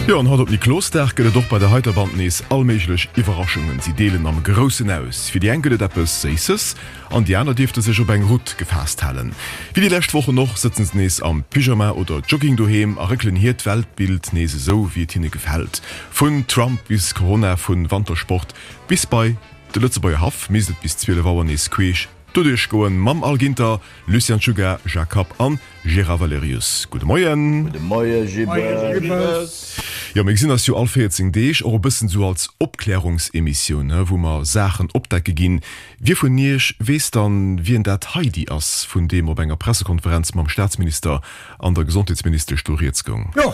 Jo, an haut op Niklosdag gëtt et och bei der heiter Band nees all méiglech Iwwerraschungen. Si deelen am Groussen aus. Fir déi eng gëtt et eppes Séisses an déi aner dierfte sech op eng Rutt gefaasst halen. Wéi déi lescht Wochen och sëtzen se nees am Pyjama oder Jogging doheem a réckelen hiert Weltbild nees esou wéi et hinne gefält. Vun Trump bis Corona, vun Wantersport bis bei de Lëtzebuerger Haff misst et bis 12 Auer nees queesch doduerch goen mam Al Ginter, Lucien Czuga, Jacques Kapp an Gérard Valerius. Gudde Moien. Gudde Moie Gibbes. Jo, mir gesinn eis jo all 14 Deeg, och e bëssen esou als Opklärungsemissioun, he, wou mer Saachen opdecke ginn. Wie vun Iech weess dann, wien dat Heidi ass, vun deem op enger Pressekonferenz mam Staatsminister an der Gesondheetsministesch do rieds goung? Jo,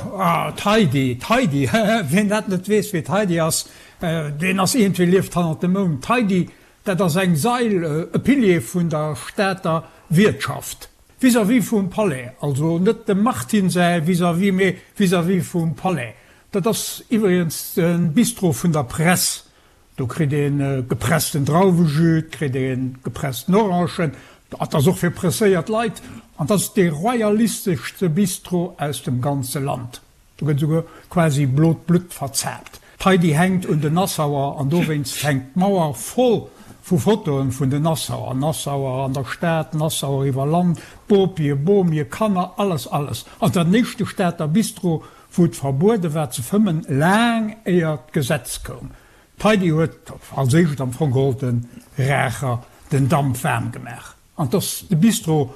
d'Heidi, d'Heidi, wien dat net weess, wie d'Heidi ass, deen ass iergendwéi lieft hannert dem Mound. D'Heidi, dat ass eng Sail, e Pilier vun der Stater Wiertschaft. Vis-à-vis vum Palais, also net dem Martin säi vis-à-vis, mee vis-à-vis vum Palais. Dat ass iwwregens de Bistro vun der Press. Do kritt ee gepressten Drauwejus, et kritt ee gepressten Orangen, dat ass och fir presséiert Leit. An dat ass dee royalisteschste Bistro aus dem ganze Land. Do gëtt esouguer quasi blot Blutt verzaapt. D'Heidi hänkt un den Nassauer an dowéinst hänkt d'Mauer voll vu Fotoen vun den Nassauer. Nassauer an der Stad, Nassauer iwwer Land, Bopie, Bomie, Kanner, alles, alles. An den éischte Stater Bistro, wou et verbuede war ze fëmmen, laang éier d'Gesetz koum. D'Heidi huet als éischt am Fong geholl de Raacher den Damp waarm gemaach. An 't ass de Bistro,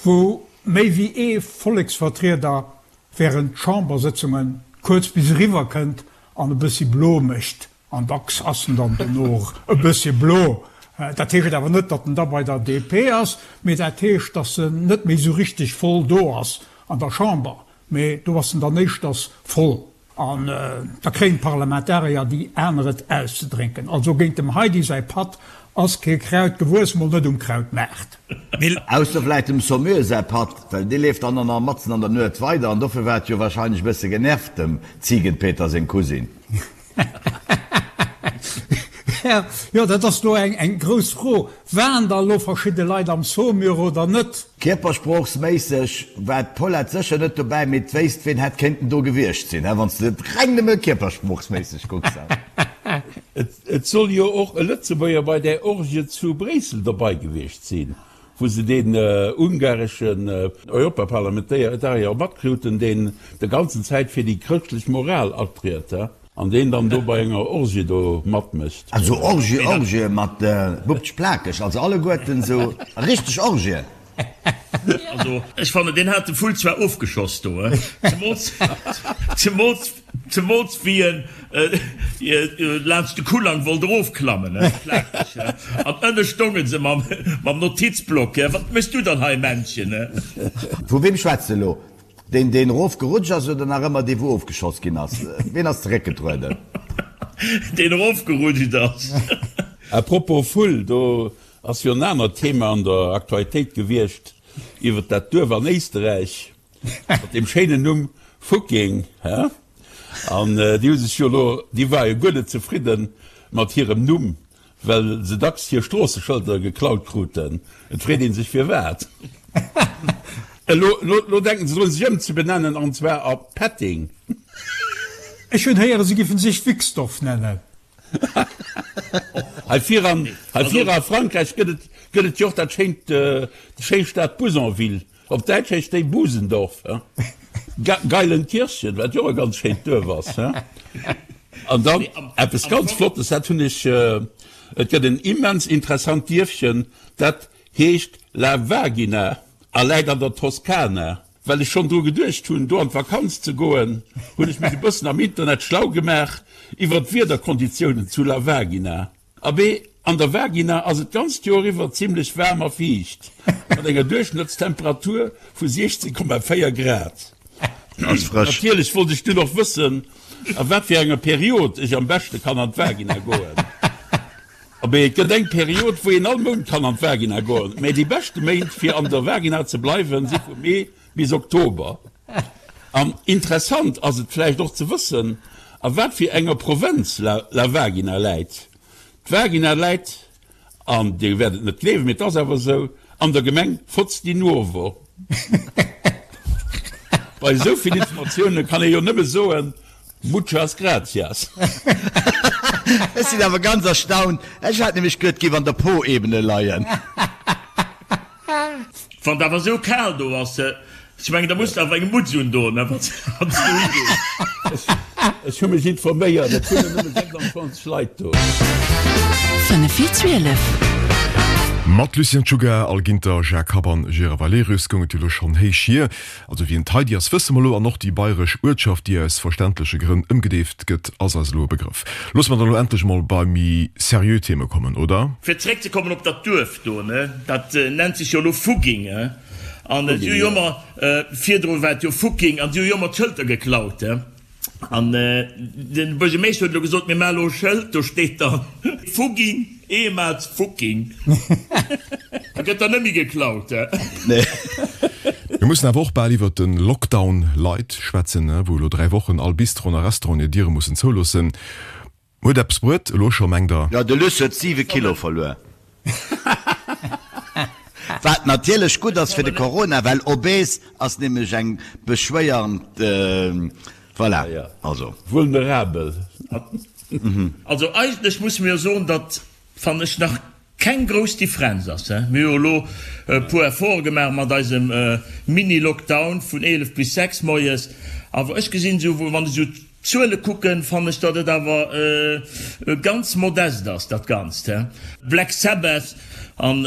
wou méi wéi ee Volleksvertrieder während Chambersëtzunge kuerz bis eriwwer kënnt an e bëssi blo mécht. An dacks ass en dann dono och e bëssi blo. Dat heescht awer net, datt en da bei der DP ass, mee dat heescht, datt en net méi esou richteg voll do ass an der Chamber. Mee do ass en dann éischters voll. An da kréien d'Parlamentarier déi aner et auszedrénken. Also géint dem Heidi säi Patt ass kee Kraut gewuess, mol net um Krautmaart. Ausser vläit dem Saumur säi Patt, well dee leeft dann nach matzen an der Nuet weider an dofir war et jo wahrscheinlech e bësse genervt, dem Ziegenpeter seng Cousine. Jo, dat ass elo eng grouss Fro. Waren da elo verschidde Leit am Saumur oder net? Kierpersproochsméisseg war d'Paulette sécher net dobäi, mee d'wéisst ween hätt kéinten do gewiescht sinn, wann s de et reng nëmme kierpersproochsméisseg kucks. Et soll jo och e Lëtzebuerger bei där Orgie zu Bréissel dobei gewiescht sinn, wou se deen ungareschen Europaparlamentarier matkruten, deen de ganzen Zäit fir déi chrëschtlech Moral atriet. An deen dann do bei enger Orgie do matmécht. Also Orgie, Orgie mat Bubtsch plakeg, also alleguerten sou richteg Orgien. Also ech fannen deen hat de Vull zwar ofgeschoss do, zemools zemools zemools wéi en laanscht de Kullang wollt erofklammen, plakeg, an ënne stounge se mam mam Notizblock, wat méchs du dann hei Männchen? Vu weem schwätz de elo? Deen deen erof gerutscht ass oder nach ëmmer dee wou ofgeschoss ginn ass? Ween ass zeréckgetrueden? Deen erof gerutscht ass. A propos Vull, do ass jo en anert Thema an der Aktualitéit gewiescht iwwert dat Duerf an Éisterräich mat deem schéinen Numm Fucking, hä? An déi hu sech jo elo, déi ware jo guer net zefridde mat hirem Numm, Well se dacks hir Stroosseschëlder geklaut kruten. Et freet ee sech firwat. Elo elo denken se drun sech ëmzebenennen an zwar a Petting. Ech hunn héieren, se giffen sech Wixdorf nennen. Hei vir an hei vir a Frankräich gëtt et gëtt et jo och dat schéint déi schéi Stad Bouzonville. Op Däitsch heescht déi Busendorf, Geilenkirchen, wat jo och e ganz schéint Duerf ass. An dann eppes ganz Flottes, dat hunn ech, et gëtt en immens interessant Dierfchen, dat heescht La Vagina a läit an der Toskana. Well ech schonn dru geduecht hunn, do an d'Vakanz ze goen, hunn ech mech e bëssen am Internet schlau gemaach iwwer d'Wiederkonditiounen zu La Vagina. Abee, an der Vagina ass et d'ganzt Joer iwwer zimmlech waarm a fiicht, mat enger Duerchschnëttstemperatur vu 16,4 Grad. Ass frësch. Natierlech wollt ech dunn och wëssen, a wat fir enger Period ech am beschte kann an d'Vagina goen. Abee, et gëtt eng Period, wou een all Mount kann an d'Vagina goen, mä déi beschte Méint fir an der Vagina ze bleiwen si vu Mee bis Oktober. An interessant ass et vläicht och ze wëssen, a wat fir enger Provënz La Vagina läit. D'Vagina läit, an Dir wäert et net gleewen, mee et ass awer esou, an der Gemeng Fotz di Nuovo. Bei esou vill Informatioune kann ee jo nëmme soen, Muchas gracias. Ech sinn awer ganz erstaunt. Ech hat nämlech geduet, et géif an der Po-Ebene leien. Wann et awer esou kal do ass, ech mengen da muss de awer eng Mutz undoen, wann s du higees. Ech hu mech informéiert, et wunnen nëmme 26 Leit do. 5 vir 12. Mat Lucien Czuga, Al Ginter, Jacques Happ an Gérard Valerius goung et jo elo schonn héich hier. Also wien d'Heidi ass, wësse mer elo, an och déi bayresch Uertschaft, déi aus verständleche Grënn ëmgedeeft gëtt, ass eis elo e Begrëff. Loosse mer dann elo endlech emol bei méi seriö Theme kommen, oder? Fir zeréckzekommen op dat Duerf do, ne, dat nennt sech jo elo Fugging, an si hu jo ëmmer, virdru war et jo Fucking, an si hu jo ëmmer d'Schëlter geklaut, An de Buergermeeschter huet elo gesot, mir maache elo e Schëld, do steet dann Fugging, ehemals Fucking. Da gëtt dann net méi geklaut. Mir mussen awer och bal iwwert de Lockdown light schwätzen, wou elo 3 Wochen all Bistroen a Restauranten hir Diere mussen zouloossen. Huet eppes bruet elo scho, mengt der? Jo, de Luss huet 7 Kilo verluer. Wat natierlech gutt ass fir de Corona, well obes ass nämlech eng beschwéiernd, voilà, also. Vulnerabel. Also eigentlech musse mir jo soen, datt, fannen ech, nach keng grouss Differenz ass. Mir hu jo elo e puer Efforte gemaach mat eisem Mini-Lockdown vun 11 bis 6 moies, awer ech gesinn esou, wann ech esou d'Zuele kucken, fannen ech, datt et awer ganz modest ass, dat Ganzt. Black Sabbath an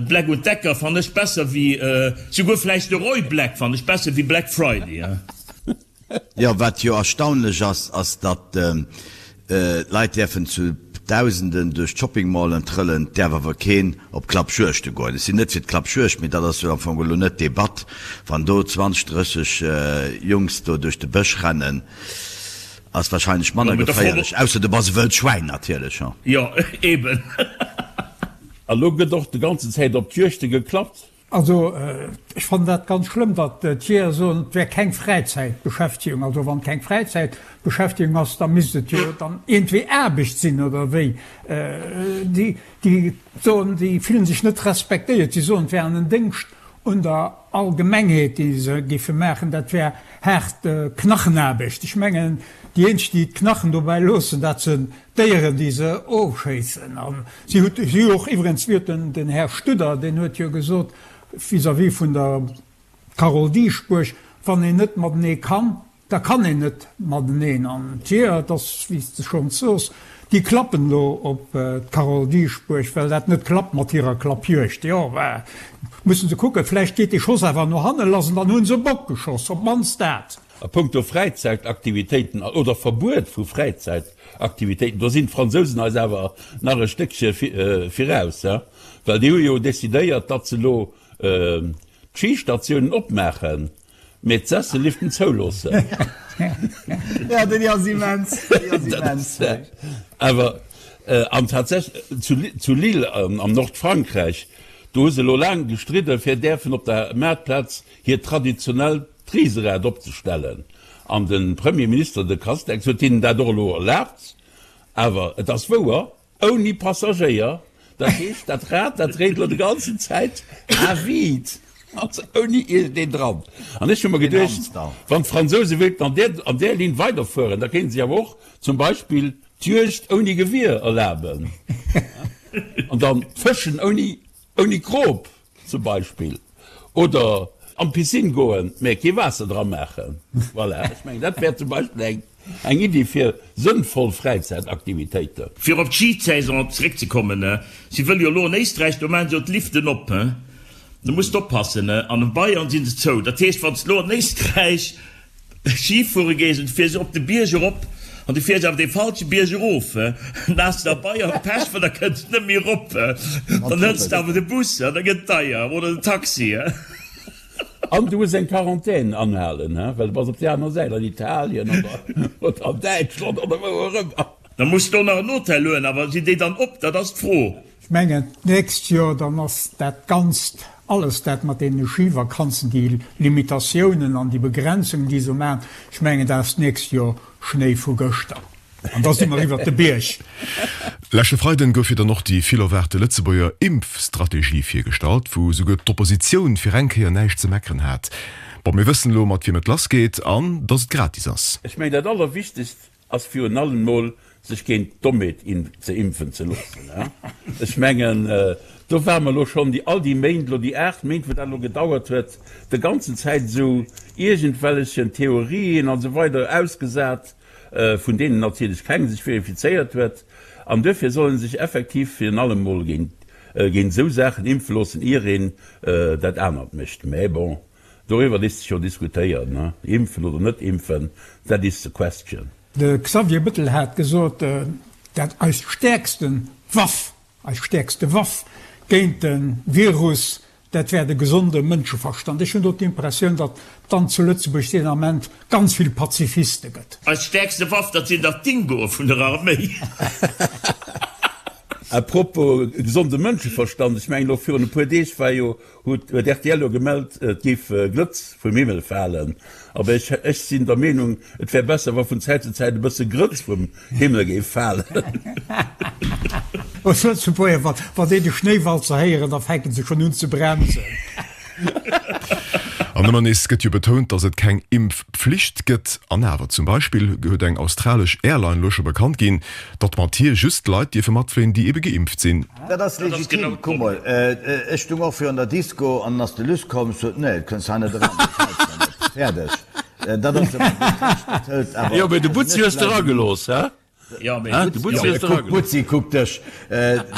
Black und Decker fannen ech besser wéi, souguer vläicht de Roy Black fannen ech besser wéi Black Friday. Jo, wat jo erstaunlech ass, ass datt d'Leit däerfen zu Dausenden duerch d'Shopping-Mallen trëllen, et däerf awer keen op Klappjuegte goen. Ech sinn net fir d'Klappjuegd, mee dat ass jo am Fong elo net d'Debatt. Wann do 20, 30 Jungs do duerch de Bësch rennen, ass wahrscheinlech manner geféierlech, ausser du bass e wëllt Schwäin natierlech. Jo, eben. A lo gëtt och de ganzen Zäit op d'Juegte geklappt. Also ech fannen dat ganz schlëmm, datt d'Jeeër soen, et wär keng Fräizäitbeschäftegung. Also wann et keng Fräizäitbeschäftegung ass, da misst et jo dann iergendwéi Aarbecht sinn, oder wéi? Déi, déi soen, déi fillen sech net respektéiert. Si soen, et wär en Déngscht un der Allgemengheet, dee se géife maachen. Dat wär haart Knachenaarbecht. Ech mengen, déi eenzeg, déi d'Knachen dobäi loossen, dat sinn D'Déieren, déi se ofschéissen. A si huet, si hu och iwwerens, wéi huet den, den Här Studer, deen huet jo gesot vis-à-vis vun der Carole Dieschbourg, wann een net matenee kann, da kann een net mateneen. An d'Jeeër, et ass, wéi s de schonns sos, déi klappen elo op d'Carole Dieschbourg, well dat net klappt mat hirer Klappjuegd. Jo, mä mussen se kucken, vläicht geet dee Schoss awer no hanne lass an dann hu se e Bock geschoss, op d'mannst dat. A punkto Fräizäitaktivitéiten oder Verbuet vu Fräizäitaktivitéiten, do sinn d'Fransousen eis awer nach e Stéckche viraus, well déi hu jo decidéiert, datt se elo d'Schistatiounen opmaachen, mee d'Sesselliften zouloossen. Jo, déi ass immens, déi ass immens. Awer, an tatsächlech zu Lille am Nordfrankräich, do hu se elo laang gestridden, fir däerfen op der Maartplaz hiert traditionellt D'Riserad opzestellen. An de Premier Minister, de Castex, huet hinnen dat och elo erlaabt. Awer et ass wouer, ouni Passagéier. Dat heescht, dat Rad, dat dréit elo déi ganzen Zäit à vide, also ouni iergendeen dran. An ech hu mer geduecht, wann d'Fransouse wéilten an där, an där Linn weiderfueren, da kéinte si awer och zum Beispill d'Juegd ouni Gewier erlaben an dann d'Fëschen ouni, ouni Krop. Zum Beispill. Oder an d'Piscine goen, mä kee Waasser dra maachen. Voilà, ech mengen, dat wär zum Beispill eng, eng Iddi fir sënnvoll Fräizäitaktivitéiten. Fir op d'Schisaison zeréckzekommen, si wëlle jo elo an Éisträich, do maachen se jo d'Liften op, do muss de oppassen, an a Bayern si se zou. Dat heescht, wann s de elo an Éisträich Schi fuere gees an du fiers op de Bierg erop an du fiers awer dee falsche Bierg erof, dann has de a Bayern Pech, well da kënns de net méi erop. Dann hëls de awer de Bus an da gëtt et deier, oder den Taxi. An du muss eng Quarantän anhalen, well du bass op där aner Säit, an Italien oder an Däitschland oder wou och ëmmer. Da muss de och nach en Hotel huelen, awer sinn déi dann op? Dat ass d'Fro. Ech mengen, d'nächst Joer, dann ass dat Ganzt, alles dat mat deene Schivakanzen, déi Limitatiounen an déi Begrenzungen, déi se maachen, ech mengen, dat ass d'nächst Joer Schnéi vu gëschter. An da si mer iwwert de Bierg. Leschte Freiden gouf jo dann och déi vill erwaarte Lëtzebuerger Impfstrategie virgestallt, wou souguer d'Oppositioun fir eng Kéier näischt ze meckeren hat. Bon, mir wëssen elo mat wiem et lass geet an dass et gratis ass. Ech mengen dat allerwichtegst ass virun allem mol sech géint d'Dommheet ze impfen ze loossen. Ech mengen do ware mer elo schonn déi all déi Méint elo, déi 8 Méint wou dat elo gedauert huet, de ganzen Zäit esou iergendwellechen Theorien an esou weider ausgesat, vun deenen natierlech keng sech verifizéiert huet. An duerfir soll ee sech effektiv virun allem mol géint esou Saachen impfe loossen, ier een dat anert mécht. Mä bon, doriwwer léisst sech jo diskutéieren, impfen oder net impfen, that is the question. De Xavier Bettel hat gesot, dat eis stäerkste Waff, eis stäerkste Waff géint de Virus, dat wär de gesonde Mënscheverstand. Ech hunn do d'Impressioun, datt dann zu Lëtzebuerg deen Ament ganz vill Pazifiste gëtt. Eis stäerkste Waff, dat sinn dach d'Dingoe vun der Arméi. A propos gesonde Mënscheverstand, ech mengen elo virun e puer Deeg war jo Huet rtl elo gemellt, et géif Glëtz vum Himmel falen. Aber ech ech sinn der Meenung, et wär besser, wa vun Zäit zu Zäit e bësse Grëtz vum Himmel géif falen. Ons Lëtzebuerger, wa wa déi de Schnéiwalzer héieren, da fänken se schonn un ze bremsen. An ëmmer nees gëtt jo betount, datt et keng Impfpflicht gëtt. An awer, zum Beispill huet eng australesch Airline elo scho bekannt ginn, datt mat hir just Leit dierfe matfléien, déi ebe geimpft sinn. Dat ass legitim. Kuck mol, ech stung och virun der Disco an ass de Luss komm, sot, nee, et kënns hei net eran, dat gefält mer net. Fäerdeg. Dat ass ëmmer gutt Recht, dat hëlt awer. Jo, mee de Butzi hues de eragelooss, hä? Jo, mee de Butzi hues de eragelooss. Butzi, kuck dech,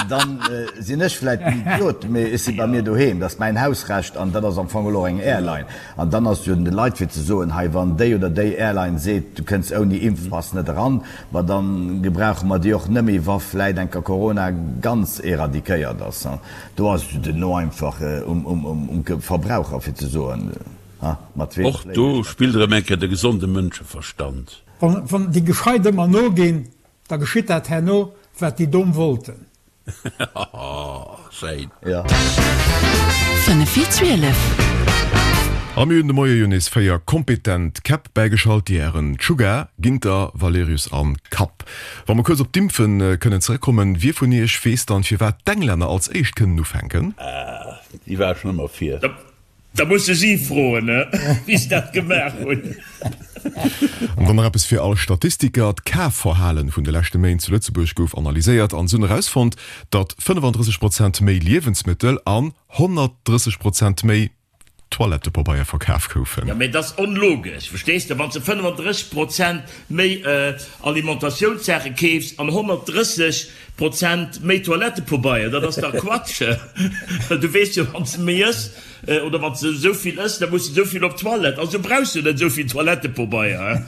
dann sinn ech vläit en Idiot, mee ech si bei mir doheem, dat ass mäin Hausrecht an dat ass am Fong elo och eng Airline. An dann ass et jo un de Leit fir ze soen, hei, wann déi oder déi Airline seet, du kënns ouni Impfpass net eran, ma da gebrauche mer déi och nëmme, wa vläit enker Corona ganz éradiquéiert ass. Do ass et jo duerno einfach um Verbraucher fir ze soen, ha, mat weem fléien ech. Och do spillt erëm eng Kéier de gesonde Mënscheverstand. Wann déi Gescheit ëmmer noginn, da geschitt dat herno, wat déi Domm wollten. Schéin. Ja. 5 vir 12. A mir hunn de Moie jo nees 4 kompetent Käpp bäigeschalt, déi Hären Czuga, Ginter, Valerius an Kapp. Wa mer kuerz op d'Impfen kënnen zeréckkommen, wie vun iech weess dann firwat d'Englänner als éischt kënnen ufänken? Déi war schon ëmmer vir. Da muss de si froen, wéi se dat gemaach hunn. An dann nach eppes fir all Statistiker, D'Kafverhalen vun de leschte Méint zu Lëtzebuerg gouf analyséiert an se hunn erausfonnt, datt 35 Prozent méi Liewensmëttel an 130 Prozent méi Toilettepabeier verkaf goufen. Jo, mee dat ass onlogesch, verstees de? Wann s de 35 Prozent méi Alimentatiounssaache keefs an 130 Prozent méi Toilettepobeier, dat ass dach Quatsch. Du weess jo, wann s de méi ëss oder wann s de esou vill ëss, da muss de esou vill op d'Toilette. Also brauchs du net esou vill Toilettepobeier.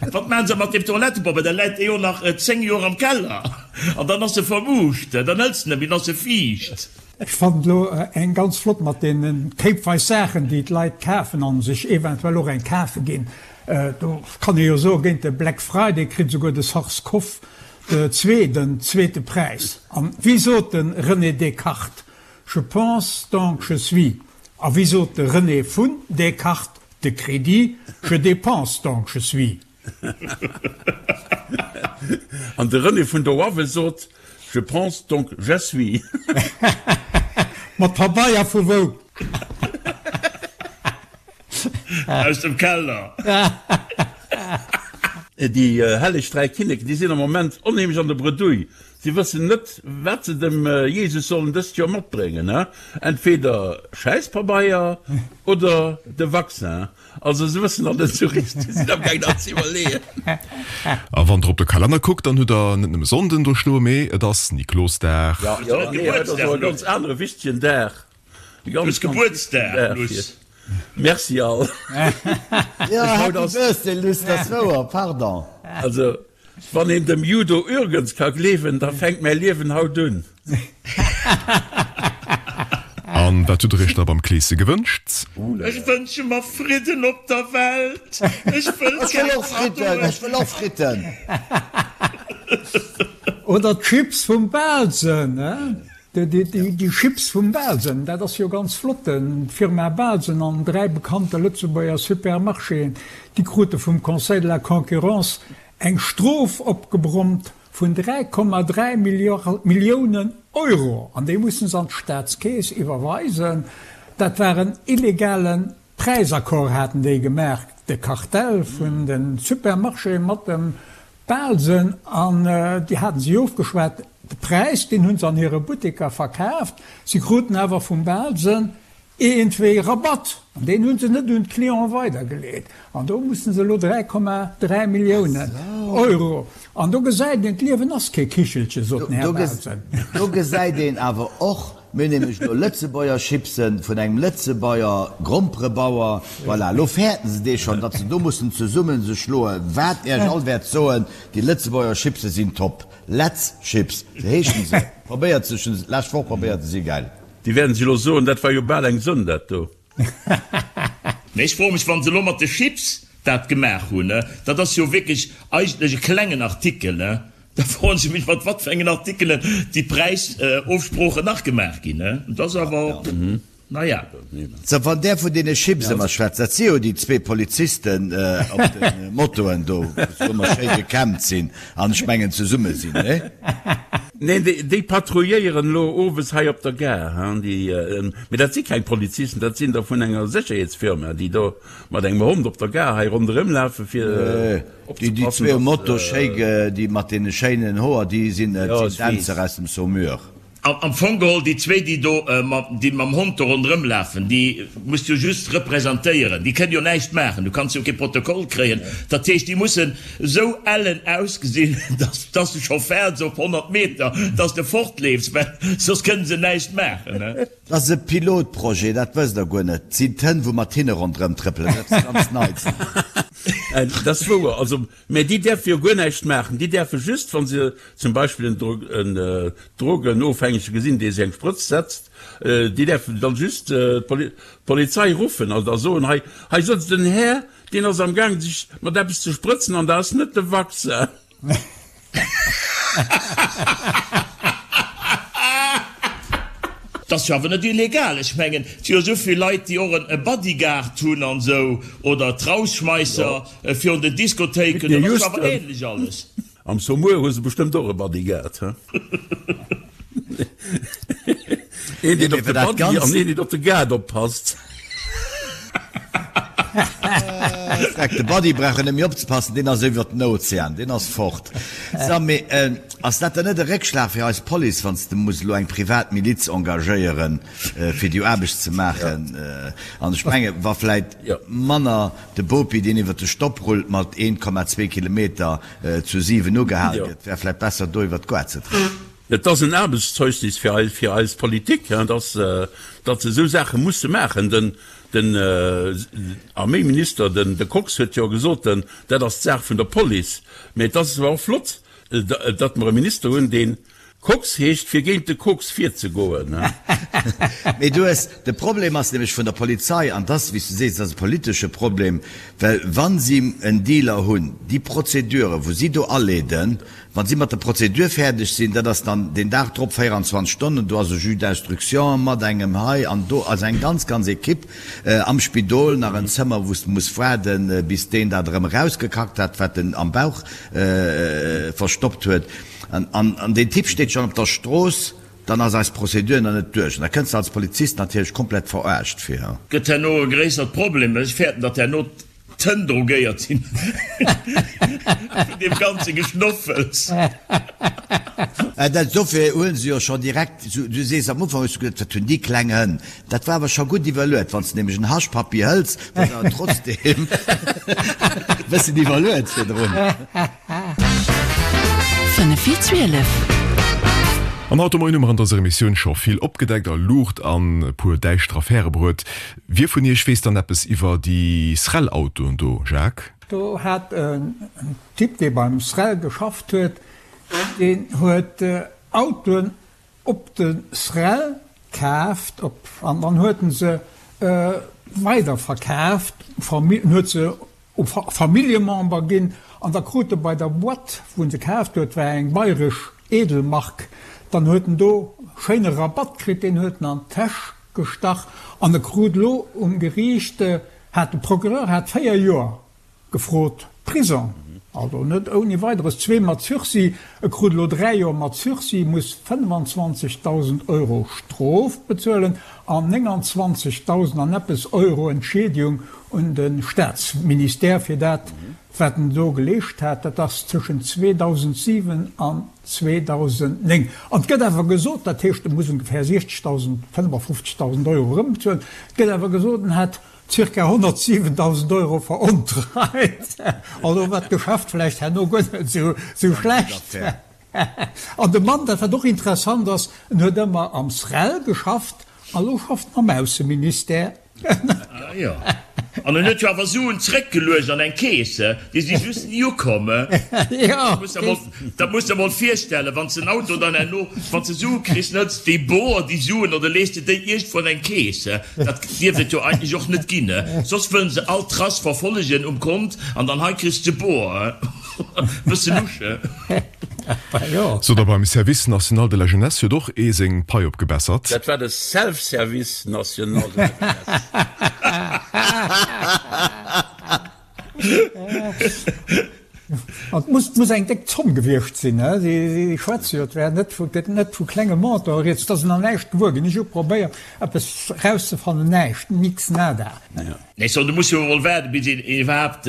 Wat maachen se mat deem Toilettepobeier? Da läit dee jo nach 10 Joer am Keller an dann ass e vermuuscht. Dann hëls de net méi, dann ass e fiicht. Ech fannen elo eng ganz flott mat deenen kéipweis Saachen déi d'Leit kafen an sech eventuell och eng kafe ginn. Do kann ee jo soen, géint de Black Friday kritt esouguer de Sars-Cov 2 den zweete Präis. An wéi sot de René Descartes, Je pense donc je suis. A wéi sot de René vun Descartes de Crédit, Je dépense donc je suis. An de René vun der Oawe sot, Je pense donc je suis. Mat Pabeier vu wou? Aus dem Keller. Déi helleg 3 Kinneken, déi sinn am Moment onheemlech an der Bredouille. Si wëssen net, wat se dem Jesus sollen dëst Joer matbréngen, entweder Schäisspabeier oder de Vaccin. Also se wëssen nach net esou richteg, si sinn amgaang nach ze iwwerleeën. A wann der op de Kalenner kuckt, dann hutt der net nëmme Sonnden do stoen, mee et ass Niklosdag. Jo, nee, dat ass och e ganz anere wichtegen Dag. Du hues Gebuertsdag, Luss. Merci all. Jo, Happy Birthday, Luss, dat ass wouer, pardon. Also, wann een dem Judo Ürgens ka gleewen, da fänkt mäi Liewen haut un. An wat hutt der iech da beim Kleese gewënscht? Ech wënsche mer Fridden op der Welt. Ech wëll keng Kaddoen. Ech wëll och Fritten. Oder d'Chips vum Bahlsen, he? Déi Chips vum Bahlsen, dat ass jo ganz flott. D'Firma Bahlsen an 3 bekannte Lëtzebuerger Supermarchéen, déi krute vum Conseil de la Concurrence eng Strof opgebrummt vun 3,3 Milliounen Euro an déi musse se an d'Staatskeess iwwerweisen. Dat war en illegale. Präisaccord haten déi gemaach, de Kartell vun de Supermarchéë mat dem Bahlsen, an déi haten sech ofgeschwat. De Präis, deen hu se an hire Butteker verkaaft. Si kruten awer vum Bahlsen iergendwéi Rabatt, an deen hu se net un d'Clienten weidergeleet. An do mussen se elo 3,3 Milliounen Euro. An do gesäit een, d'Liewen ass kee Kichelche, sot den Här Bahlsen. Do gesäit een awer och, Mir hunn nämlech elo Lëtzebuerger Chipsen vun engem Lëtzebuerger Gromperebauer. Voilà, elo fäerten se dee schonn, datt se do mussen zesumme sech schloen. Wat Iech all wäert soen, déi Lëtzebuerger Chipse sinn top. Letz Chips, sou heeschen se. Probéiert se, ech hunn se d'lescht Woch probéiert, se si gäil. Déi wäerten sech elo soen, dat war jo bal eng Sënn, dat do. Mee ech froe mech, wa se elo mat de Chips dat gemaach hunn, dat ass jo wierklech eigentlech e klengen Artikel, Da froen ech mech, mat wat fir engen Artikelen déi Präisofsproochen nach gemaach ginn. Dat ass awer, naja. Sou, wann där vun deene Chips ëmmer schwätzt, dat si jo déi zwee Polizisten op de Motoen do, wou se ëmmer schéi gekämmt sinn an ech mengen zesumme sinn, nee? Neen, déi patrouilléieren elo owes hei op der Gare, hein, déi, mee dat si keng Polizisten, dat sinn der vun enger Sécherheetsfirma, déi do mat engem Hond op der Gare hei ronderëm lafen, fir. Déi déi zwee um Moto schéi déi mat deene schéinen Hoer déi sinn et sinn Dänzer aus dem Saumur. Am Fong geholl déi zwee déi do déi mam Hond do ronderëm lafen déi muss jo just representéieren, déi kënnen jo näischt maachen, du kanns jo kee Protokoll kréien. Dat heescht déi mussen esou ellen ausgesinn, dass dass de scho fäerts op 100 Meter, dass de fortleefs, well soss kënnen se näischt maachen. Dat ass e Pilotprojet, dat wësst der guer net. 't sinn d'Hënn, wou mat hinne ronderëm trëppelen, dat ass ganz Neits. Dat ass wouer. Also, mä déi däerfe jo guer näischt maachen. Déi däerfe just, wa se zum Beispill en Drogenofhängege gesinn, dee sech eng Sprëtz setzt, déi däerfen dann just d'Polizei ruffen a soen, Hei, hei sëtzt en Här, deen ass am Gaang, sech mat eppes ze sprëtzen an dat ass net de Vaccin. Dat ass jo awer net illegal. Ech mengen, et si jo esou vill Leit, déi och e Bodyguard hunn an esou, oder d'Rausschmeisser virun den Diskothéiken. Dat ass jo awer ähnlech alles. Am Saumur hu se bestëmmt och e Bodyguard, he? Een, deen op de Buddy an een, deen op de Guard oppasst. Freck, de Buddy brauch en net méi opzepassen, deen ass iwwert den Ozean, deen ass fort. So, mee ass dat dann net e Réckschlag fir eis Police, wann s de muss elo eng privat Miliz engagéieren, fir déi Aarbecht ze maachen? An ech menge wa vläit manner de Bopi, deen iwwert de Stopp rullt mat 1,2 Kilometer zu 7 ugehal gëtt, wär vläit besser do iwwert d'Goart ze trëppelen. Et ass en Aarbechtszeugnis fir eis Politik, datt se esou Saache musse maachen. Den Arméiminister, de Kox, huet jo gesot, dat ass d'Saach vun der Police. Mä et ass awer och flott, datt mer e Minister hunn, dee Kox heescht, fir géint de Kox virzegoen. Mee du hues, de Problem ass nämlech vun der Polizei, an dass, wéi s du sees, dat ass e politesche Problem, well wa si en Dealer hunn, déi Prozedure wou si do aleeden, Wa si mat der Prozedur fäerdeg sinn, dat ass dann deen Dag drop, 24 Stonnen, do ass e Juge d'instruction mat engem hei an do, also eng ganz, ganz Equipe am Spidol, nach en Zëmmer, wou s de muss waarden, bis deen dat erëm erausgekackt hat, wat en am Bauch verstoppt huet. An deen Typ steet schonn op der Strooss, dann ass eis Prozedur nach net duerch. An da kënns de als Polizist natierlech komplett verarscht vir. Gëtt herno e gréissert Problem. Ech fäerten, datt herno D'Hënn drogéiert sinn vun deem ganze Geschnoffels. Dat dofir huelen se jo scho direkt, du sees am Ufank hues du gesot, wat hunn déi kleng Hënn. Dat war awer scho gutt iwwerluet. Wann s de nämlech en Haschpappi hëls, da ass awer trotzdem e bëssen iwwerluet virdrun. 5 vir 12. An haut de Moien hu mer an dëser Emissioun scho vill opgedeckt a Luucht an e puer däischter Affäre bruet. Wie vun iech weess dann eppes iwwer déi SREL-Autoen do, Jacques? Do hat en Typ, dee beim SREL geschafft huet, deen huet Autoen op de SREL kaaft an dann huet en se weiderverkaaft, en huet se u Familljemember ginn an da krut e bei der Boîte, wou en se kaaft huet, war eng bayresch Edelmark, dann huet en do schéine Rabatt kritt, deen huet en an d'Täsch gestach an e krut elo um Geriicht, hat de Procureur hat 4 Joer gefrot Prison. Also net ouni Weideres, zwee mat Sursis. E krut elo 3 Joer mat Sursis, muss 25.000 Euro Strof bezuelen an 29.000 an eppes Euro Entschiedegung un de Staatsministère fir dat, wat en do geleescht hat. Dat ass tëschent 2007 an 2009. An et gëtt awer gesot, dat heescht, e muss ongeféier 60.000, 55.000 Euro erëmbezuelen, et gëtt awer gesot, en hätt Circa 107.000 Euro verontreit. Also war d'Geschäft vläicht herno guer net esou schlecht. An de Mann, dat wat och interessant ass, en huet ëmmer am SREL geschafft a lo schafft en am Ausseministère. Ah jo. An en huet jo awer Suen zréckgeluecht an eng Keess, déi si just ni ukomm. Dat muss de mol virstellen, wann s de en Auto dann herno, wann s de Sue kriss, hëls de déi boer, déi Suen, oder lees de déi iergendwou an eng Keess. Dat dierft et jo eigentlech och net ginn. Soss wëllen se all Trace verfollegen um Kont an dann hei kriss de boer. Bësse lusch. Sot a beim Service national de la jeunesse huet och ee seng Pai opgebessert. Dat war de Self-Service national de la jeunesse. An et muss, muss eng déck Zomm gewiescht sinn, he? Si, si schwätze jo, et wär net vu, gëtt net vu klenge Montanten rieds. Et ass nach näischt gewuer ginn. Ech hu probéiert, eppes erauszefannen, näischt, nix, nada. Nee, so, du muss jo emol waarden, bis een iwwerhaapt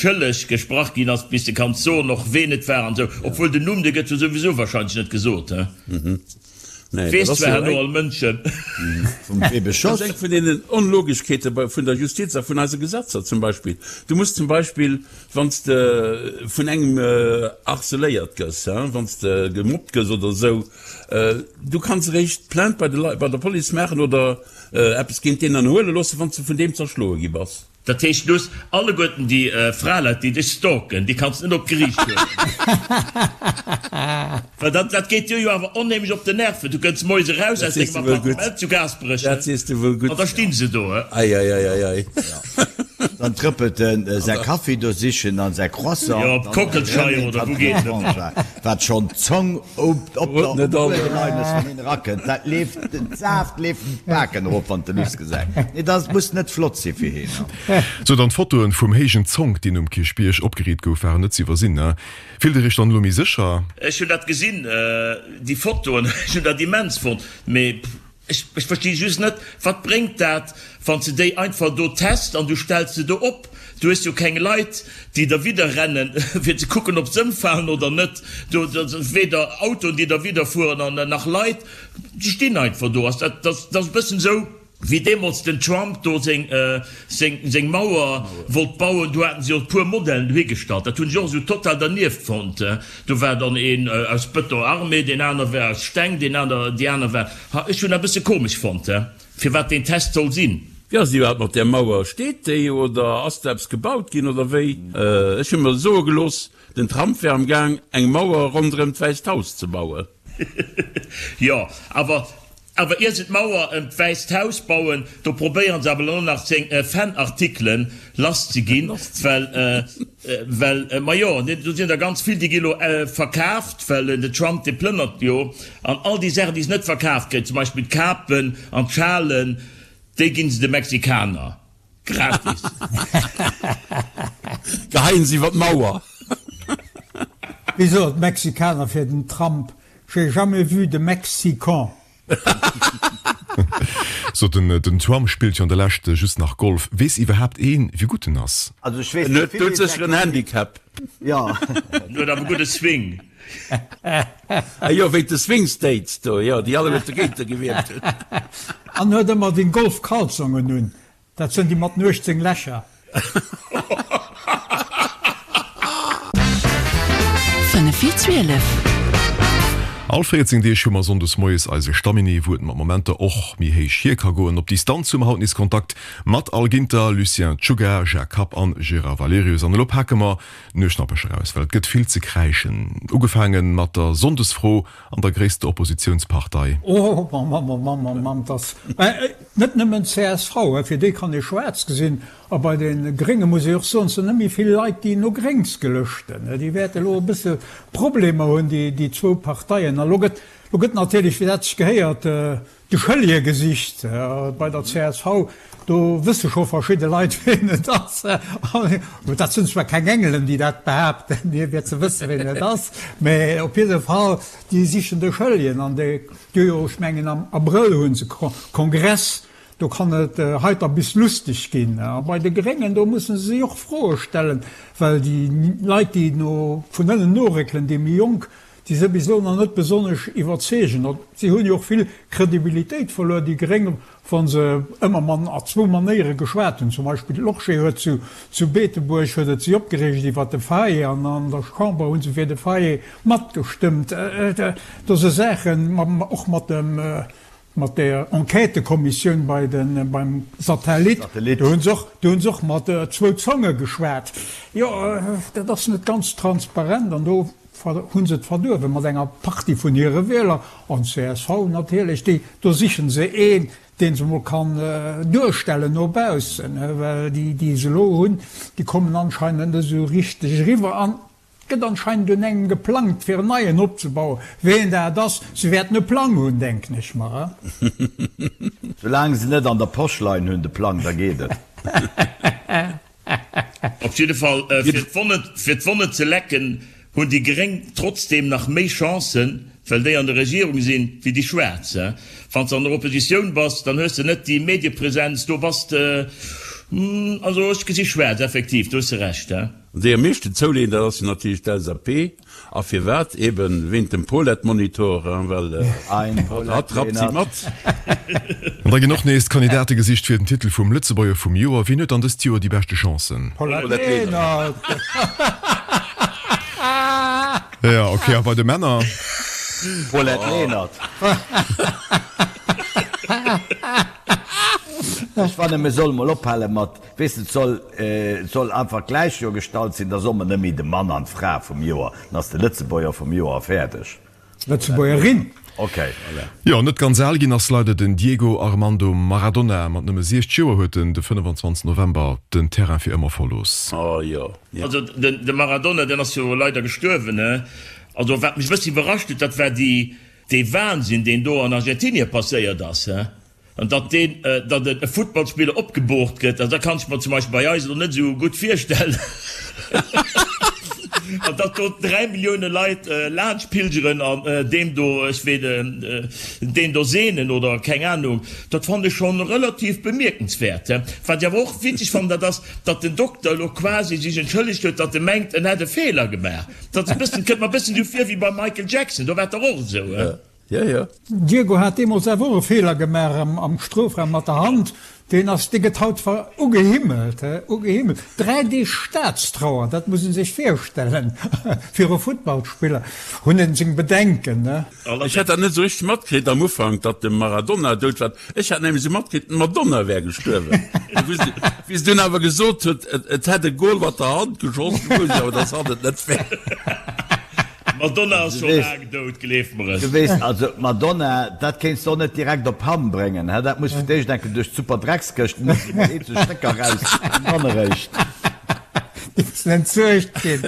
schëlleg gesprach ginn ass, bis de kanns soen och ween et war an esou. Obwuel den Numm, dee gëtt jo souwisou wahrscheinlech net gesot, he? Nee, Weess dat ass zwar jo herno eng. all Mënschen. Vum wee Dat ass beschoss? eng vun deenen Onlogeschkeete bei, vun der Justiz a vun eise Gesetzer zum Beispill. Du muss zum Beispill, wann s de vun engem harceléiert gëss, hein, wann s de gemobbt gëss oder esou, du kanns eréischt Plainte bei de Leit, bei der Police maachen oder eppes géint deen ënnerhuele loossen, wann s de vun deem zerschloe gi bass. Dat heescht, du hues alleguerten déi Fraleit, déi dech stalken, déi kanns de net op d'Geriicht huelen. Well dat, dat geet dir jo awer onheemlech op den Nerven. Du kënns moies eraus Dat aus sees dengem de wuel gutt. Appartement zu Gaasperech, Dat sees de wuel an gutt. da stinn se do. Ei, ei, ei, ei, ei. Dann trëppelt en säi Kaffi do sichen an säi Croissant. Jo, op d'Kockelscheier oder wou geet en? Wat schonn d'Zong op der Uewerlein ass, wann een erakënnt, dat leeft, den Saaft leeft em d'Baken erof, wann de Luss gesäit. Nee, dat muss net flott si fir heen. Sou, dann d'Fotoen vum héijen Zonk, deen um Kierchbierg opgeriit gouf, waren net ze iwwersinn, ne? Fillt der iech dann elo méi sécher? Ech hunn dat gesinn, déi Fotoen, ech hunn dat immens fonnt, mee Ech versti just net, wat bréngt dat, wann s de déi einfach do test an du stells se do op? Du hues jo keng Leit, déi derwidder rennen, fir ze kucken, ob se ëmfalen oder net. Do weder Autoen, déi derwidder fueren, an nach Leit, déi stinn einfach do. Dat ass e bëssen esou, wéi deemools den Trump do seng Mauer wollt bauen. Do haten se jo e puer Modellen dohigestallt. Dat hunn ech och esou total dernieft fonnt. Do war dann een aus Beton armé, deen aner war aus Steng, deen aner, déi aner war, ha, ech hunn dat e bësse komesch fonnt, he, firwat deen Test soll sinn. Wéi ass et iwwerhaapt mat där Mauer? Steet déi oder ass do eppes gebaut ginn oder wéi? Ech hu mer soe gelooss, den Trump wär am Gaang eng Mauer ronderëm d'Wäisst Haus ze bauen. Jo, awer Awer ier se d'Mauer ëm d'Wäisst Haus bauen, do probéieren se awer elo nach seng Fanartikelen lass ze ginn, well, well, majo, do sinn der ganz vill, déi gi lo verkaaft, well den Trump, dee plënnert jo, an all déi Saachen, déi se net verkaaft kréien, zum Beispill d'Kapen an d'Schalen, déi ginn se de Mexikaner gratis. Geheien se iwwer d'Mauer. Wéi soen d'Mexikaner fir den Trump? J'ai jamais vu de Mexican. So, den den Trump spillt jo an der Lescht just nach Golf. Weess iwwerhaapt een, wéi gutt en ass? Also ech weess En net huet vill, doudsécher en Handicap. Jo. En huet awer gudde Swing. Ah jo, wéi de Swing States do, jo, déi alleguerte dogéint gewielt hunn. An huet ëmmer den Golfkalzongen un. Dat sënn déi mat den 18 Lächer. Fënnef vir 12. All 14 Deeg hu mer Sonndes moies eise Stamminet, wou et mat Momenter och méi héich hier ka goen. Op Distanz hu mer haut nees Kontakt mat Al Ginter, Lucien Czuga, Jacques Kapp an Gérard Valerius. An elo pake mer d'Nueschnappecher aus, well et gëtt vill ze kräischen. Ugefaange mat der Sonndesfro an der gréisster Oppositiounspartei. Oh Mamm, oh Mamm, oh Mamm, dass net nëmmen csv, fir déi kann ee schwaarz gesinn, a bei de Grénge muss ee och soen, et sinn net méi vill Leit, déi no Gréngs gelëschten. Déi wäerte elo e bësse Problemer hunn, déi zwou Parteien. A lo gëtt, lo gëtt natierlech, wéi dat sech gehéiert. de Schëllje gesicht bei der csv. Do wësse scho verschidde Leit, wien et ass. Dat sinn zwar keng Engelen, déi dat behaapten, hie wier ze wësse wien et ass, mä op jidde Fall, déi sichen de Schëlljen. An déi hu jo, ech mengen am Abrëll hu se Kongress, do kann et heiter bis lusteg ginn. A bei de Gréngen, do musse se sech och Froe stellen, well déi Leit, déi no vun ënnen noréckelen, déi méi Jonk, déi se bis elo nach net besonnesch iwwerzeegen. Si hunn jo och vill Kredibilitéit verluer, déi Gréng, wa se ëmmer man a zwou Manéiere geschwat hunn. Zum Beispill d'Lorsché huet zu zu Beetebuerg huet et si opgereegt iwwert de Faye an an der Chamber hu se fir de Faye matgestëmmt. Do si Saachen, och mat dem mat der Enquêtëkommissioun bei de beim Satellit, do hu se och do hu se och mat zwou Zonge geschwat. Jo, dat ass net ganz transparent an do Hunn se et verduerwe mat enger Partie vun hire Wieler, an csv natierlech, déi, do sichen se een, deen se mol kann duerstellen no baussen, well déi, déi se elo hunn, déi kommen anscheinend net esou richteg eriwwer. An et gëtt anscheinend un engem geplangt, fir en neien opzebauen. Ween dat ass, se wäerten e Plang hunn, denken ech mer. Soulaang se net an der Posch leien hunn, de Plang, da geet et. Op jidde Fall, fir d'Wonne ze lecken, hunn déi Gréng trotzdeem nach méi Chancen, well déi an der Regierung sinn, wéi déi Schwaarz. Wann s de an der Oppositioun bass, dann hues de net déi Mediepresenz, do bass de, also ech gesi schwaarz, effektiv, do hues de Recht. Déi am meeschten zouleeën, dat ass jo natierlech d'LSAP. A firwat? Eben wéint dem Paulette-Monitor, well hatt rappt si mat. An da ginn och nees d'Kandidate gesicht fir den Titel vum Lëtzebuerger vum Joer. Wien huet dann dëst Joer déi beschte Chancen? Paulette Lenert. Jo, ok. A bei de Männer? Paulette Lenert. Ech fannen, mir solle mol ophale mat Weess de, et soll, et soll einfach gläich jo gestallt sinn, da soll mer net méi de Mann an d'Fra vum Joer, dann ass de Lëtzebuerger vum Joer a fäerdeg. Lëtzebuergerin. Ok. Jo, net ganz al ginn ass leider den Diego Armando Maradona. Mat nëmme 60 Joer huet en de 25 November den Terrain fir ëmmer verlooss. Oh jo. Also de Maradona, deen ass jo leider gestuerwen, he. Also wat mech e bëssi iwwerrascht huet, dat war déi, dee Wahnsinn, deen do an Argentinien passéiert ass, he. An datt deen, datt e Futtballspiller opgeboort gëtt, also dat kann ech mer zum Beispill bei eis elo net esou gutt virstellen. An datt do 3 Millioune Leit laanscht pilgeren an deem do, ech wee, deen do seenen oder keng Ahnung, dat fannen ech schonn relativ bemierkenswäert. Wat ech awer och witzeg fannen, dat ass, datt den Dokter elo quasi sech entschëllegt huet, datt e mengt, en hätt e Feeler gemaach. Dat ass e bëssen, kënnt mer e bëssen esou vir wéi beim Michael Jackson, do war et dach och esou. Jo, jo. Diego hat deemols awer och e Feeler gemaach am Strofraum mat der Hand. Deen ass, dee gëtt haut ver ugehimmelt, he, ugehimmelt. 3 Deeg Staatstrauer, dat muss een sech virstellen fir e Futtballspiller. Hunn een seng Bedenken, ne? Ech hat dat net esou richteg matkritt am Ufank, datt de Maradona dout war. Ech hat nämlech esou matkritt, d'Madonna wär gestuerwen. Wéi se dunn awer gesot huet, et hätt e Gol mat der Hand geschoss, du wousst ech awer, datt hatt et net wär. D'Madonna ass scho laang dout, gleef mer et. Du weess, also d'Madonna, dat kéints de och net direkt op Hamm bréngen, hä? Dat muss fir d'éischt enke duerch d'Superdreckskëscht, da mussen emol eenzel Stécker raus an dann eréischt. Déi mussen entsuergt ginn.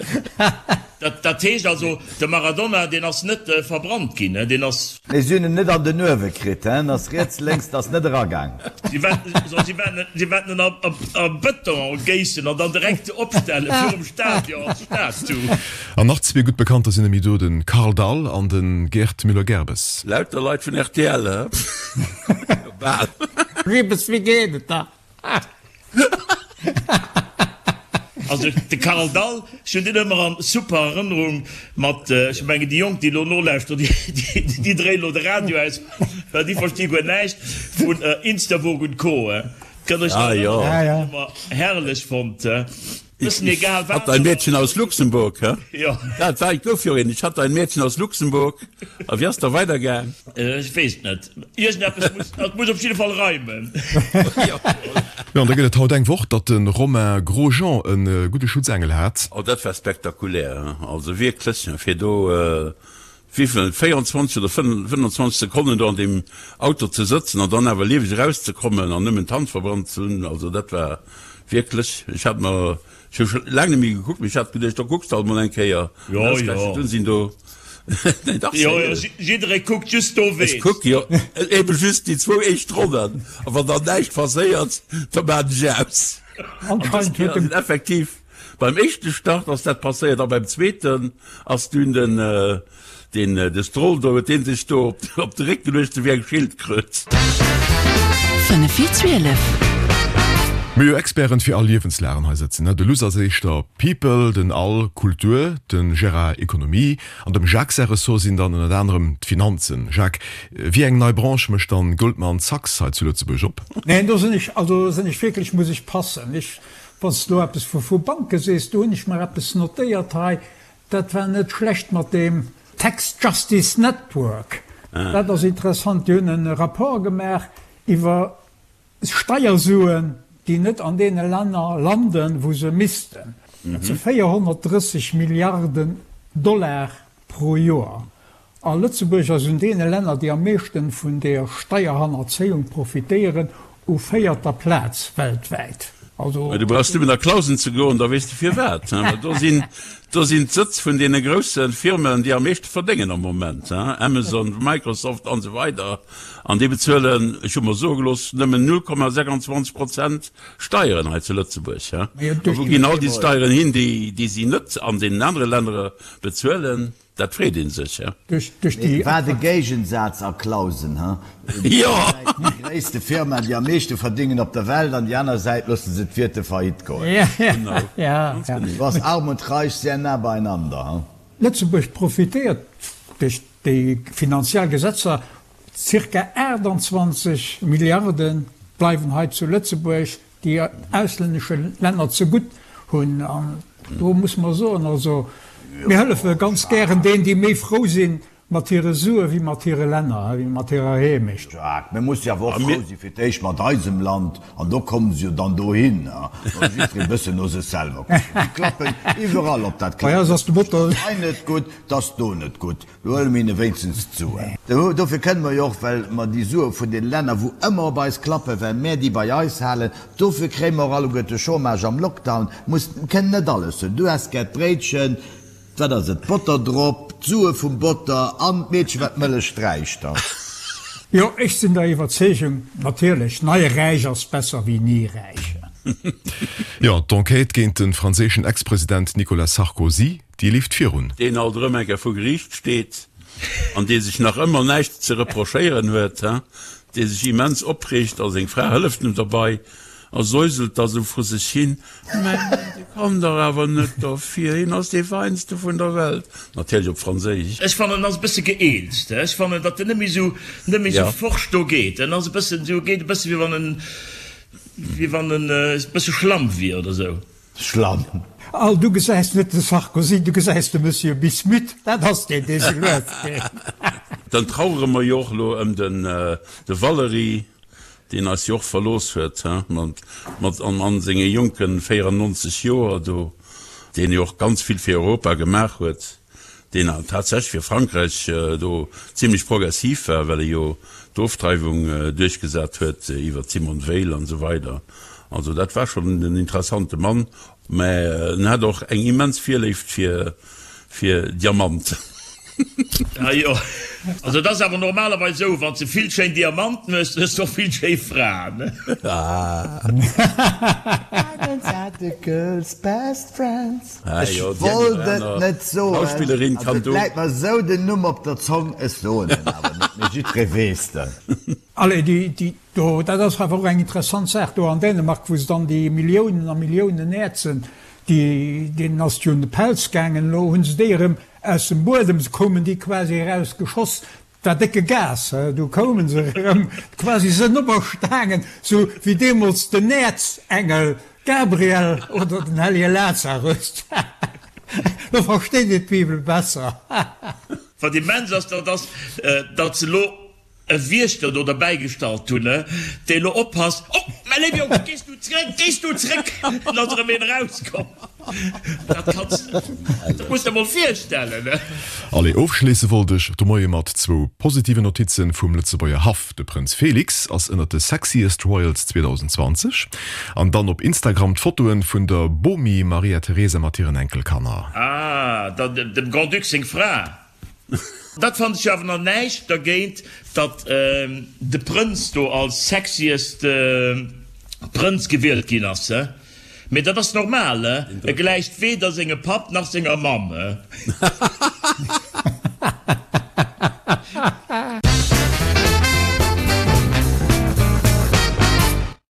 Dat heescht also, de Maradona, deen ass net verbrannt ginn, deen ass. Nee, si hunn en net an den Uewe kritt, hä? En ass riets, lénks, ass net eragaang. Si wäerten en a Bëton géissen an dann direkt opstelle virum Stadion als Statue. An nach zwee gutt Bekannter sinn emi do, de Karl Dall an de Gerd Müller-Gerbes. Lauter Leit vun rtl, hä? Bal. Ribes, wéi geet et da? Also de Karl Dall, ech hunn deen ëmmer an super Erënnerung mat, ech mengen déi Jonk déi elo nolauschteren, déi dréien elo de Radio aus, well déi versti guer näischt vun Instavogue und Co. Kënnt Iech nach erënneren, hu mer herrlech fonnt. Bëssen egal wat. Hat ein Mädchen aus Luxemburg, hä? Jo. Dat war, et gouf jo een, Ich hatte ein Mädchen aus Luxemburg. A wéi ass da weidergaang? Ech weess et net. Iergendeppes muss, et muss op jidde Fall reimen. Jo. Jo, an da gëtt et haut eng Woch, datt de Romain Grosjean e gudde Schutzengel hat. Oh, dat war spektakulär, he. Also wierklech, fir do wéivill, 24 oder 25 Sekonnen do an deem Auto ze sëtzen an dann awer lieweg erauszekommen an nëmmen d'Hand verbrannt ze hunn, also dat war wierklech, ech hat mer, ech hu scho laang net méi gekuckt, mee ech hat geduecht, da kucks de alt mol eng Kéier. An ausgerechent dunn sinn do. Nee, dach, Jo, jo, sérieux. jidderee kuckt just do Ech ween. kuck jo ebe just déi zwou éischt Ronnen, a wann dann näischt passéiert, da maan ech aus. An dës Anscheinend huet Kéier dem. sinn effektiv beim éischte Start ass dat passéiert a beim zweeten ass dunn den, Deen de Stroll do, huet deen sech do op de Réck geluecht, sou wéi eng Schildkröt. 5 vir 12. Mir hu jo Experten fir all Liewenslagen hei sëtzen, ne? De Luss ass éischter People, den Al Kultur, de Gérard Ekonomie an dem Jacques säi Ressort sinn dann ënnert anerem d'Finanzen. Jacques, wéi eng nei Branche mécht dann Goldman Sachs hei zu Lëtzebuerg op? Neen, do sinn ech, also do sinn ech wierklech, muss ech passen. Ech, wann s de elo eppes vu Banke sees, do hunn ech mer eppes notéiert hei, Dat war net schlecht mat deem Tax Justice Network. Dat ass interessant. Déi hunn e Rapport gemaach iwwer Steiersuen, déi net an deene Länner landen, wou se missten. Dat si 430 Milliarden Dollar pro Joer. A Lëtzebuerg ass un deene Länner, déi am meeschten vun der Steierhannerzéiung profitéieren, u véierter Plaz weltwäit. Also. Mä du brauchs nëmmen a Clausen ze goen, da weess de firwat. Well do sinn, do sinn d'Sëtz vun deene grousse Firmen, déi am meeschte verdéngen am Moment, Amazon, Microsoft an esou weider. An déi bezuelen, ech hu mer soe gelooss, nëmmen 0,26 Prozent Steieren hei zu Lëtzebuerg. A wou ginn all déi Steieren hin, déi, déi si net an deenen anere Lännere bezuelen? Dat freet een sech, he? Duerch déi. Wat e Géigensaz a Clausen, he? Déi eng Säit déi gréisste Firma, déi am meeschte verdingen op der Welt, an déi aner Säit loosse se d'Wirte faillite goen. Do ass Arm und Reich sehr nah beieinander, he? Lëtzebuerg profitéiert duerch déi finanziell Gesetzer, Circa 28 Milliarde bleiwen hei zu Lëtzebuerg. déi auslännesche Länner zegutt hunn. An do muss mer soen, also mir hëllefe ganz gären deenen, déi méi frou si mat hire Sue wéi mat hire Länner, wéi mat hirer Heemecht. Jacques, Mir musse jo awer och frou si fir d'éischt mat eisem Land, an do komme se jo dann dohin, wa jiddweree e bëssen no sech selwer kuckt. Déi klappen iwwerall op dat Bei eis ass de Motor. Ass hei net gutt, 't ass do net gutt. Do huele mir hinne wéinstens d'Suen. Dofir kënne mer jo och, well mer déi Sue vun den Länner, wou ëmmer op eis klappen, well mär déi bei eis halen, dofir kréie mer och alleguerte Chômage am Lockdown. Muss, kënnen net alles hunn. Du häss gär d'Bréitchen, wat ass et, Botter drop, d'Sue vum Botter an d'Meedchen, wat d'Mëllech sträicht da. Jo, ech sinn der Iwwerzeegung, natierlech, nei räich ass besser wéi ni räich. Jo, d'Enquête géint de franséischen Ex-President Nicolas Sarkozy Déi leeft virun. Deen alt erëm eng Kéier vu Geriicht steet an dee sech nach ëmmer näischt ze reprochéieren huet, dee sech immens opreegt a seng Fra hëlleft em derbei a säuselt da sou vru sech hin, Mä dee kann dach awer net derfir, hien ass dee Feinste vun der Welt. Natierlech op Franséisch. Ech fannen, en ass e bësse gëeelzt. Ech fannen, datt en net méi sou, net méi sou forsch do geet. En ass e bëssen sou, geet e bësse wéi wann en, wéi wann en e bësse schlamm wier oder sou. Schlamm. Al, du gesäis net de Sarkozy, du gesäis de Monsieur Bismuth, dat ass deen, dee sou lues geet. Dann trauere mer jo och elo ëm den de Valery, deen eis jo och verlooss huet, he, mat, mat an, an senge jonke 94 Joer do, deen jo och ganz vill fir Europa gemaach huet. deen tatsächlech fir Frankräich do zimlech progressiv war, well e jo d'Ofdreiwung duerchgesat huet iwwer d'Simone Veil an esou weider. Also dat war schonn en interessante Mann, mä en hat och eng immens Virléift fir fir Diamanten. Ah jo, also et ass awer normalerweis esou, wann s de vill schéin Diamanten hues, dann hues de och vill schéi Fraen. Diamonds are the girls' best friends. Ech wollt et net soen, also et läit mer esou den Numm op der Zong, ech soen en awer net, mee jiddweree weess en. Allez, déi do, dat ass awer och eng interessant Saach do an Dänemark, wou se dann déi Milliounen a Milliounen Äerzen, déi, deenen ass et jo un de Pelz gaangen, elo hu se déi erëm aus dem Buedem, se koumen déi quasi erausgeschoss, Dat war décke Gas, du koumen se erëm quasi sënn operstaangen, sou wéi deemools den Äerzengel Gabriel oder den hellege Lazarus. Lo versteet een d'Bibel besser. Wat immens ass, dat ass, datt se elo e Wiechter do derbäigestallt hunn, dee elo oppasst, Oh, mäi léiwe Jong, gees du zréck, gees du zréck! An ass erëm een erauskomm. Dat kanns dat muss de mol virstellen. Allez, ofschléisse wollt ech de Moie mat zwou positiven Notizen vum Lëtzebuerger Haff. De Prënz Félix ass ënnert de Sexiest Royals 2020. An dann op Instagram d'Fotoen vun der Bomi Maria Teresa mat hiren Enkelkanner. Ah, dem Grand-Duc seng Fra. Dat fannen ech awer nach näischt dergéint, datt de Prënz do als sexiest Prënz gewielt ginn ass, he? Mee dat ass normal, he? E gläicht weder sengem Papp nach senger Mamm, he?